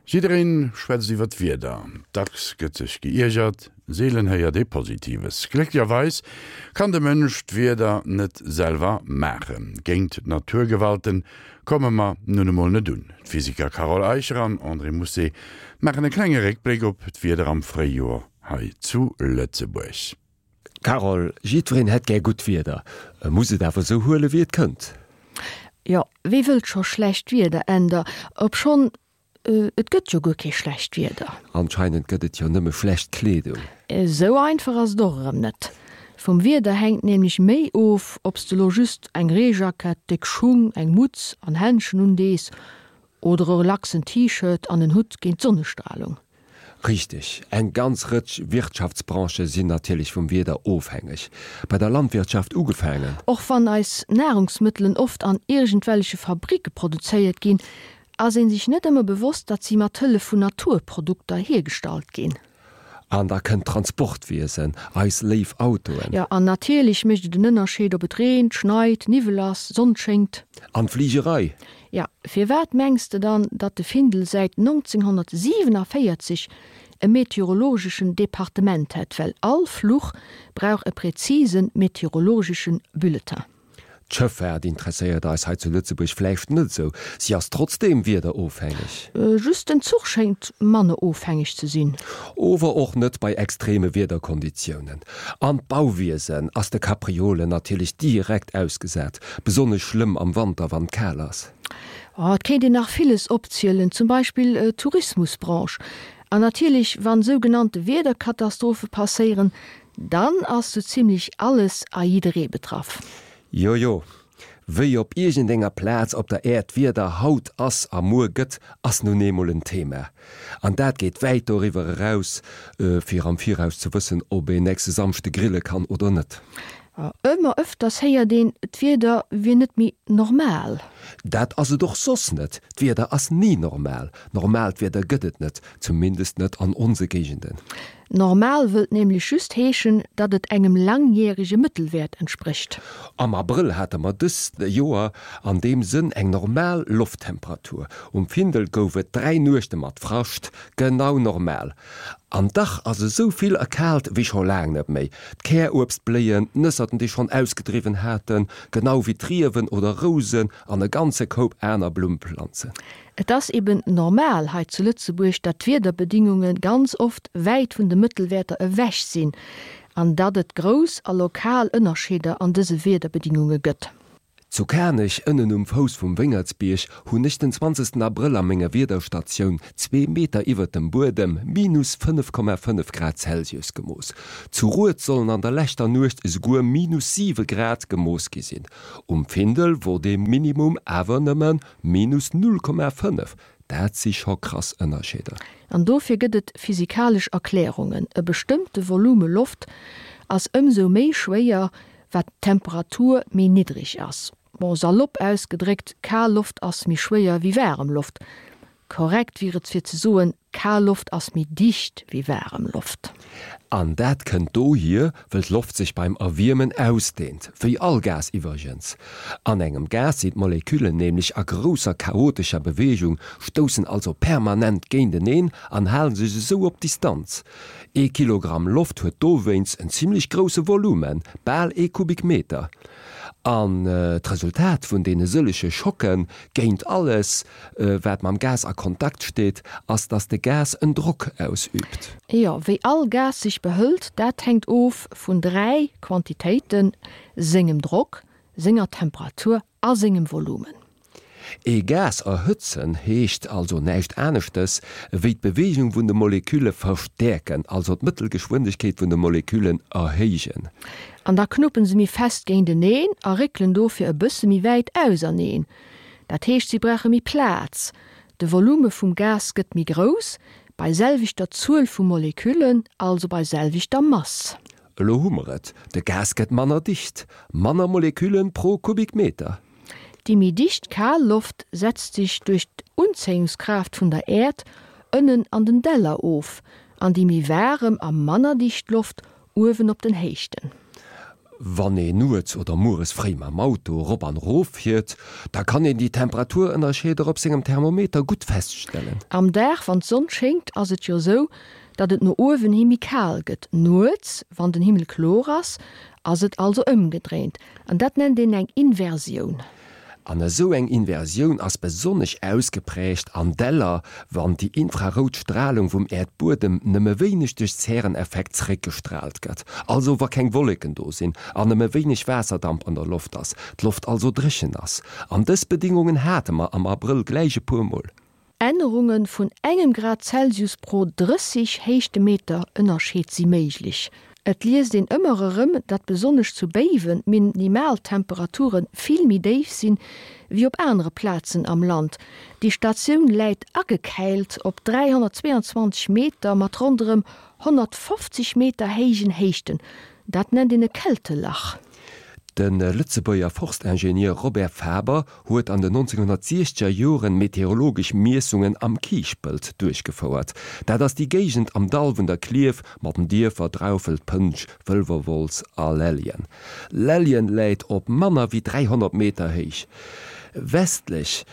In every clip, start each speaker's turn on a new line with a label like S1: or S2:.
S1: Jiddereen schwätzt iwwer d'Wieder, dacks gëtt sech geiergert, seelen héiert ee Positives. Glécklecherweis kann de Mënsch d'Wieder net selwer maachen. Géint d'Naturgewalten komme mer nun emol net un. D'Physiker Carole Eicher an André Mousset maachen e klenge Réckbléck op d'Wieder am Fréijoer hei zu Lëtzebuerg.
S2: Carole, Jiddwereen hätt gär gutt Wieder, e muss et awer esou huele wéi et kënnt.
S3: Jo, wee wëllt scho schlecht Wieder, Änder, obschonn, et gëtt jo guer kee schlecht Wieder.
S2: Anscheinend gëtt et jo nëmme schlecht Kleedung.
S3: Esou einfach ass et och erëm net. Vum Wieder hänkt nämlech méi of, ob s de lo just eng Reejackett, déck Schung, eng Mutz an Händschen undees oder e relaxen T-Shirt an en Hutt géint d'Sonnestralung.
S2: Richteg, eng ganz Rëtsch Wirtschaftsbranchë sinn natierlech vum Wieder ofhängeg. Bei der Landwirtschaft ugefaangen.
S3: Och wann eis Nahrungsmëttelen oft an iergendwelleche Fabricke produzéiert ginn, ass een sech net ëmmer bewosst, datt si mat Hëllef vun Naturprodukter hiergestallt ginn.
S2: An da kënnt d'Transportwiesen, eis léif Autoen.
S3: Jo, an natierlech mécht et en Ënnerscheed, ob et reent, schneit, Niwwel ass, Sonn schéngt.
S2: An d'Fligerei.
S3: Jo, firwat mengs de dann, datt de Findel säit 1947 e meteorologeschen Departement hätt? Well all Fluch brauch e präzise meteorologeschen Bulletin.
S2: D'Schëffaart interesséiert eis hei zu Lëtzebuerg vläicht net esou, si ass trotzdeem wiederofhängeg.
S3: Just den Zuch schéngt manner ofhängeg ze sinn.
S2: Ower och net bei extreme Wiederkonditiounen. An d'Bauwiesen ass de Kapriolen natierlech direkt ausgesat, besonnesch schlëmm am Wanter, wann et kal ass.
S3: Oh, et kéint een nach villes opzielen, zum Beispill d'Tourismusbranche. An natierlech, wann sougenannte Wiederkatastrophe passéieren, Dann ass sou zimlech alles a jidderee betraff.
S2: Jojo, wéi op iergendenger Plaz op der Äerd d'Wieder haut ass a muer gëtt, ass nun eemol en Thema. An dat geet wäit doriwwer eraus, fir am Viraus ze wëssen, ob een nächste Samschde grille kann oder net.
S3: Ëmmer ëfters héiert een, d'Wieder wier net méi normal.
S2: Dat ass et och soss net. D'Wieder ass ni normal. Normaalt Wieder gëtt et net, zumindest net an onse Géigenden.
S3: Normal wëllt nämlech just heeschen, datt et engem langjärege Mëttelwäert entsprécht.
S2: Am Abrëll hate mer dëst Joer an deem Sënn eng normal Lofttemperatur. Um Findel gouf et 3 Nuechte mat Frascht, genau normal. An dach ass esou vill erkaalt wéi scho laang net méi. D'Käruebst bléien, d'Nësserten déi schonn ausgedriwwen haten, genau wéi d'Riewen oder Rousen an e ganze Koup aner Blummplanzen.
S3: Et ass eben normal hei zu Lëtzebuerg, datt d'Wiederbedingunge ganz oft wäit vun de Mëttelwäerter ewech sinn an datt et grouss a lokal Ënnerscheeder an dëse Wiederbedingunge gëtt.
S2: Zu Kanech, ënnen um Fouss vum Wéngertsbierg, hunn ech den 20 Abrëll a menger Wiederstatioun, zwee Meter iwwert dem Buedem, minus 5,5 Grad Celsius gemooss. Zu Rued sollen an der leschter Nuecht esouguer minus 7 Grad gemooss gi sinn. Um Findel wor dee Minimum awer nëmme Minus 0,5, dat si scho krass Ënnerscheeder.
S3: An dofir gëtt et physikalesch Erklärungen, E bestëmmte Volume Loft ass ëmsou méi schwéier, wat d'Temperatur méi niddreg ass. Bon, salopp ausgedréckt, kal Loft ass méi schwéier wéi waarem Loft. Korrekt wier et fir ze soen, Kal Loft ass méi dicht wéi waarem Loft.
S2: An dat kënnt dohier, wëll d'Loft sech beim Erwiermen ausdehnt, wéi all Gas iwwregens. An engem Gas sinn d'Moleküllen nämlech a grousser chaotescher Beweegung, stoussen also permanent géinteneen an hale sech esou op Distanz. Ee Kilogramm Loft huet dowéinst en zimmlech grousse Volumen, bal ee Kubikmeter. An d'Resultat vun deene sëllege Schocke géint alles, wat mam Gas a Kontakt steet, ass, dass de Gas en Drock ausüübt.
S3: Jo, wéi all Gas sech behëlt, dat hänkt of vun 3 Quantitéiten, sengem Drock, senger Temperatur a sengem Volumen.
S2: Ee Gas erhëtzen heescht also näischt aneschtes, wéi d'Beweegung vun de Molekülle verstäerken, also d'Mëttelgeschwindegkeet vun de Moleküllen erhéijen.
S3: An da knuppen se méi fest géinteneen a réckelen dofir e bësse méi wäit auserneen. Dat heescht, si brauche méi Plaz. De Volume vum Gas gëtt méi grouss, bei selwechter Zuel vu Moleküllen, also bei selwechter Mass.
S2: Elo hu mer et, de Gas gëtt manner dicht, manner Moleküllen pro Kubikmeter.
S3: Déi méi dicht kal Loft setzt sech duerch d'Unzéiungskraaft vun der Äerd ënnen an den Däller of, an déi méi waarem a manner dicht Loft uewen op den Héichten.
S2: Wann een nuets oder mueres fréi mam Auto erop an erof fiert, da kann een déi Temperaturënnerscheeder op sengem Thermometer gutt feststellen.
S3: Am Dag, wann d'Sonn schéngt, ass et jo sou, datt et no uewen hi méi kal gëtt. Nuets, wann den Himmel kloer ass, ass et also ëmgedréint. An dat nennt een eng Inversioun.
S2: An esou eng Inversioun ass besonnesch ausgeprägt an Däller, wann déi infrarout Stralung vum Äerdbuedem nëmme wéineg duerch Zäreneffekt zeréckgestraalt gëtt, also wa keng Wolleken do sinn an nëmme wéineg Waasserdamp an der Loft ass, d'Loft also dréchen ass. An dës Bedingungen hate mer am Abrëll gläich e puer Mol.
S3: Ännerunge vun engem Grad Celsius pro 30 Héichtemeter Ënnerscheed si méiglech. Et liest een ëmmer erëm, datt besonnesch zu Béiwen d'Minimaltemperature vill méi déif sinn, wéi op anere Plazen am Land. Déi Statioun läit agekäilt op 322 Meter mat ronderëm 150 Meter héijen Héichten. Dat nennt een e Kältelach.
S2: De Lëtzebuerger Forstingenieur Robert Faber huet an den 1960er Joren meteorologesch Miessungen am Kiischpelt duerchgefouert. Dat ass déi Géigend am Dall vun der Klierf mat den Dierfer Draufelt, Pënsch, Wëlwerwolz a Lelljen. Lelljen läit op manner wéi 300 Meter héich. Westlech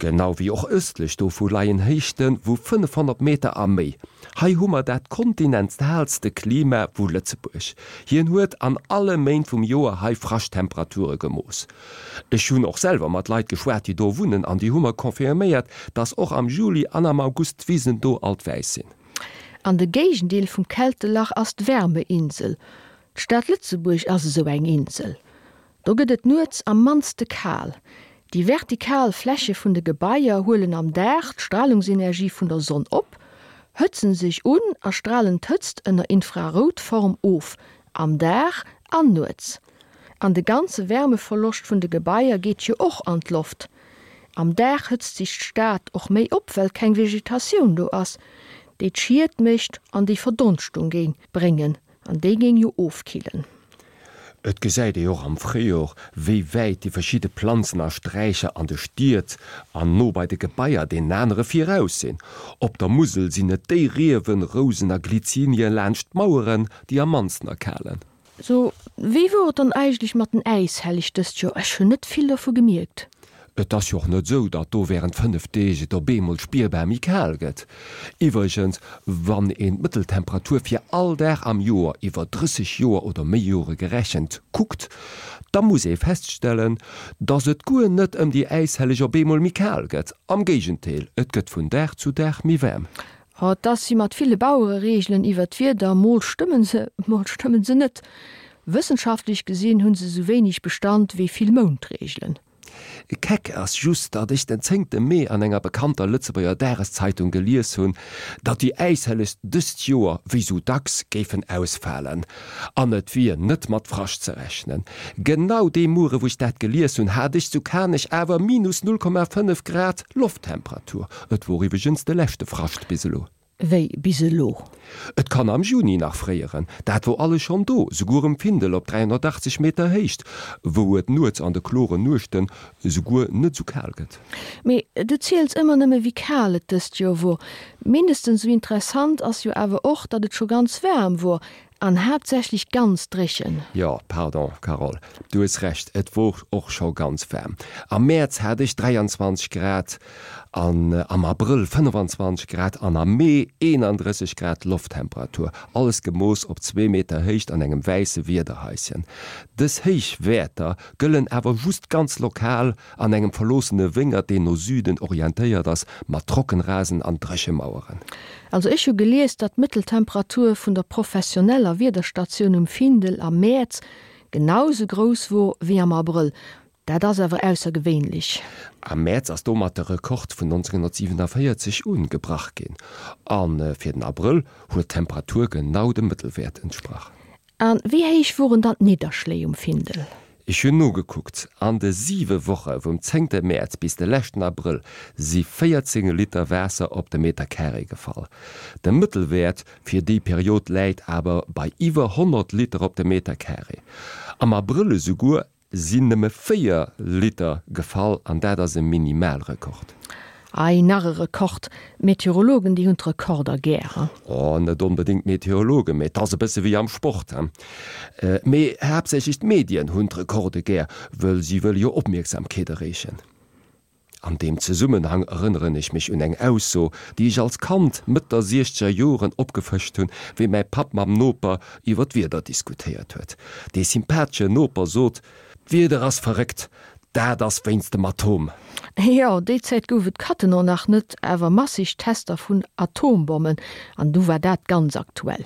S2: Genau wéi och ëstlech dovu leien Héichte vu 500 Meter a méi. Hei hu mer dat kontinentalste Klima vu Lëtzebuerg. Hien huet an alle Méint vum Joer hei Frascht-Temperature gemooss. Ech hunn och selwer mat Leit geschwat, déi do wunnen, an déi hu mer confirméiert, dass och am Juli an am August d'Wisen do alt wäiss sinn.
S3: An de Géigendeel vum Kältelach ass d'Wärmeinsel. D'Stad Lëtzebuerg ass esou eng Insel. Do gëtt et nuets am mannste kal. Déi vertikal Fläche vun de Gebaier huelen am Dag d'Stralungsenergie vun der Sonn op, hëtzen sech un a stralen d'Hëtzt ënner Infraroutform of, am Dag an nuets. An de ganze Wärmeverloscht vun de Gebaier geet jo och an d'Loft. Am Dag hëtzt sech d'Stad och méi op, well keng Vegetatioun do ass, déi d'Schied mécht an déi Verdonschtung géing bréngen. An déi géing jo ofkillen.
S2: Et gesäit ee och am Fréijor, wéi wäit déi verschidde Planzen a Sträicher an de Stied an no bei de Gebaier deenen anere viraus sinn. Op der Musel sinn et déi Riewen, Rousen a Glyzinien laanscht d'Maueren, déi am mannsten erkalen.
S3: So, wéi wor et dann eigentlech mat den Äishelleg dëst Joer? Ech hunn net vill dovu gemierkt.
S2: Et ass jo och net esou, datt do wärend 5 Deeg et op eemol spierbar méi kal gëtt. Iwwregens, wann een d'Mëtteltemperatur fir all Dag am Joer iwwer 30 Joer oder méi Jore gerechent kuckt, da muss ee feststellen, datt et guer net ëm déi Äishelleg op eemol méi kal gëtt. Am Géigendeel, et gëtt vun Dag zu Dag méi waarm.
S3: Oh, 't ass wéi mat ville Bauerereegelen iwwer d'Wieder, mol stëmmen se, mol stëmmen se net. Wëssenschaftlech gesinn hunn se sou wéineg Bestand wéi vill Moundreegelen.
S2: Keck ass just, datt ech den zéngte Mee an enger bekannter Lëtzebuerger Dageszeitung gelies hunn, datt déi Äishelleg dëst Joer, wéi sou dacks, géifen ausfalen an et wier net mat Frascht ze rechnen. Genau dee Muere wou ech dat gelies hunn, hat ech zu Kanech awer minus 0,5 Grad Lofttemperatur. Et wor iwweregens de leschte Frascht bis elo.
S3: Wéi bis elo?
S2: Et kann am Juni nach fréieren, dat wor alles schonn do, souguer um Findel op 380 Meter Héicht, wou et nuets an de kloren Nuechten souguer net sou kal gëtt.
S3: Mee du ziels ëmmer nëmme wéi kal et dëst Joer wor. Mindestens sou interessant ass jo awer och, datt et scho ganz waarm wor An haaptsächlech ganz dréchen.
S2: Jo, pardon Carole, du hues Recht, et wor och scho ganz waarm. Am Mäerz hat ech 23 Grad an am Abrëll 25 Grad an am Mee 31 Grad Lofttemperatur, alles gemooss op zwee Meter Héicht an engem wäisse Wiederhaischen. Dës héich Wäerter gëllen awer just ganz lokal An engem verloossene Wéngert, deen no Süden orientéiert ass, mat Trockenrasen an Dréchemaueren.
S3: Also ech hu gelies, datt d'Mëtteltemperatur vun der professioneller Wiederstatioun um Findel am Mäerz genau sou grouss wor wéi am Abrëll. Dat ass awer aussergewéinlech.
S2: Am Mäerz ass domat de Rekord vun 1947 un gebrach ginn. A fir den Abrëll huet d'Temperatur genau dem Mëttelwäert entsprach.
S3: A wéi héich woren dann d'Nidderschléi um Findel?
S2: Ech hunn nogekuckt, An de siwe Woche vum zéngte Mäerz bis de leschten Abrëll si 14 Liter Waasser op de Meter Carré gefall. De Mëttelwäert fir déi Period läit awer bei iwwer 100 Liter op de Meter Carré. Am Abrëll esouguer sinn nëmme 4 Liter gefall an dat ass e Minimalrekord.
S3: Ei, nach e Rekord! D'Meteorologen, déi hunn d'Rekorder gär, he?
S2: Oh, net onbedéngt d'Meteorologen, mee et ass e bësse wéi am Sport, he? Mee haaptsächlech d'Medien hunn d'Rekorde gär, wëll si wëlle jo Opmierksamkeet erreechen. An deem Zesummenhang erënneren ech mech un eng Ausso, déi ech als Kand Mëtt der siechzeger Joren opgefëscht hunn, wéi mäi Papp mam Noper iwwer d'Wieder diskutéiert huet. Dee sympatheschen Noper sot, D'Wieder ass verréckt, dat ass wéinst dem Atom.
S3: Jo, déi Zäit gouf et Cattenom nach net, awer massig Tester vun Atombommen, an du war dat ganz aktuell.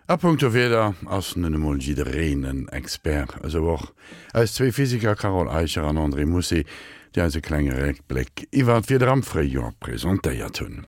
S1: A punkto Wieder ass nun emol jiddereen en Expert, esou och eis zwee Physiker Carole Eicher an André Mussi, déi eis e klenge Réckbléck iwwer d'Wieder am Fréijoer presentéiert hunn.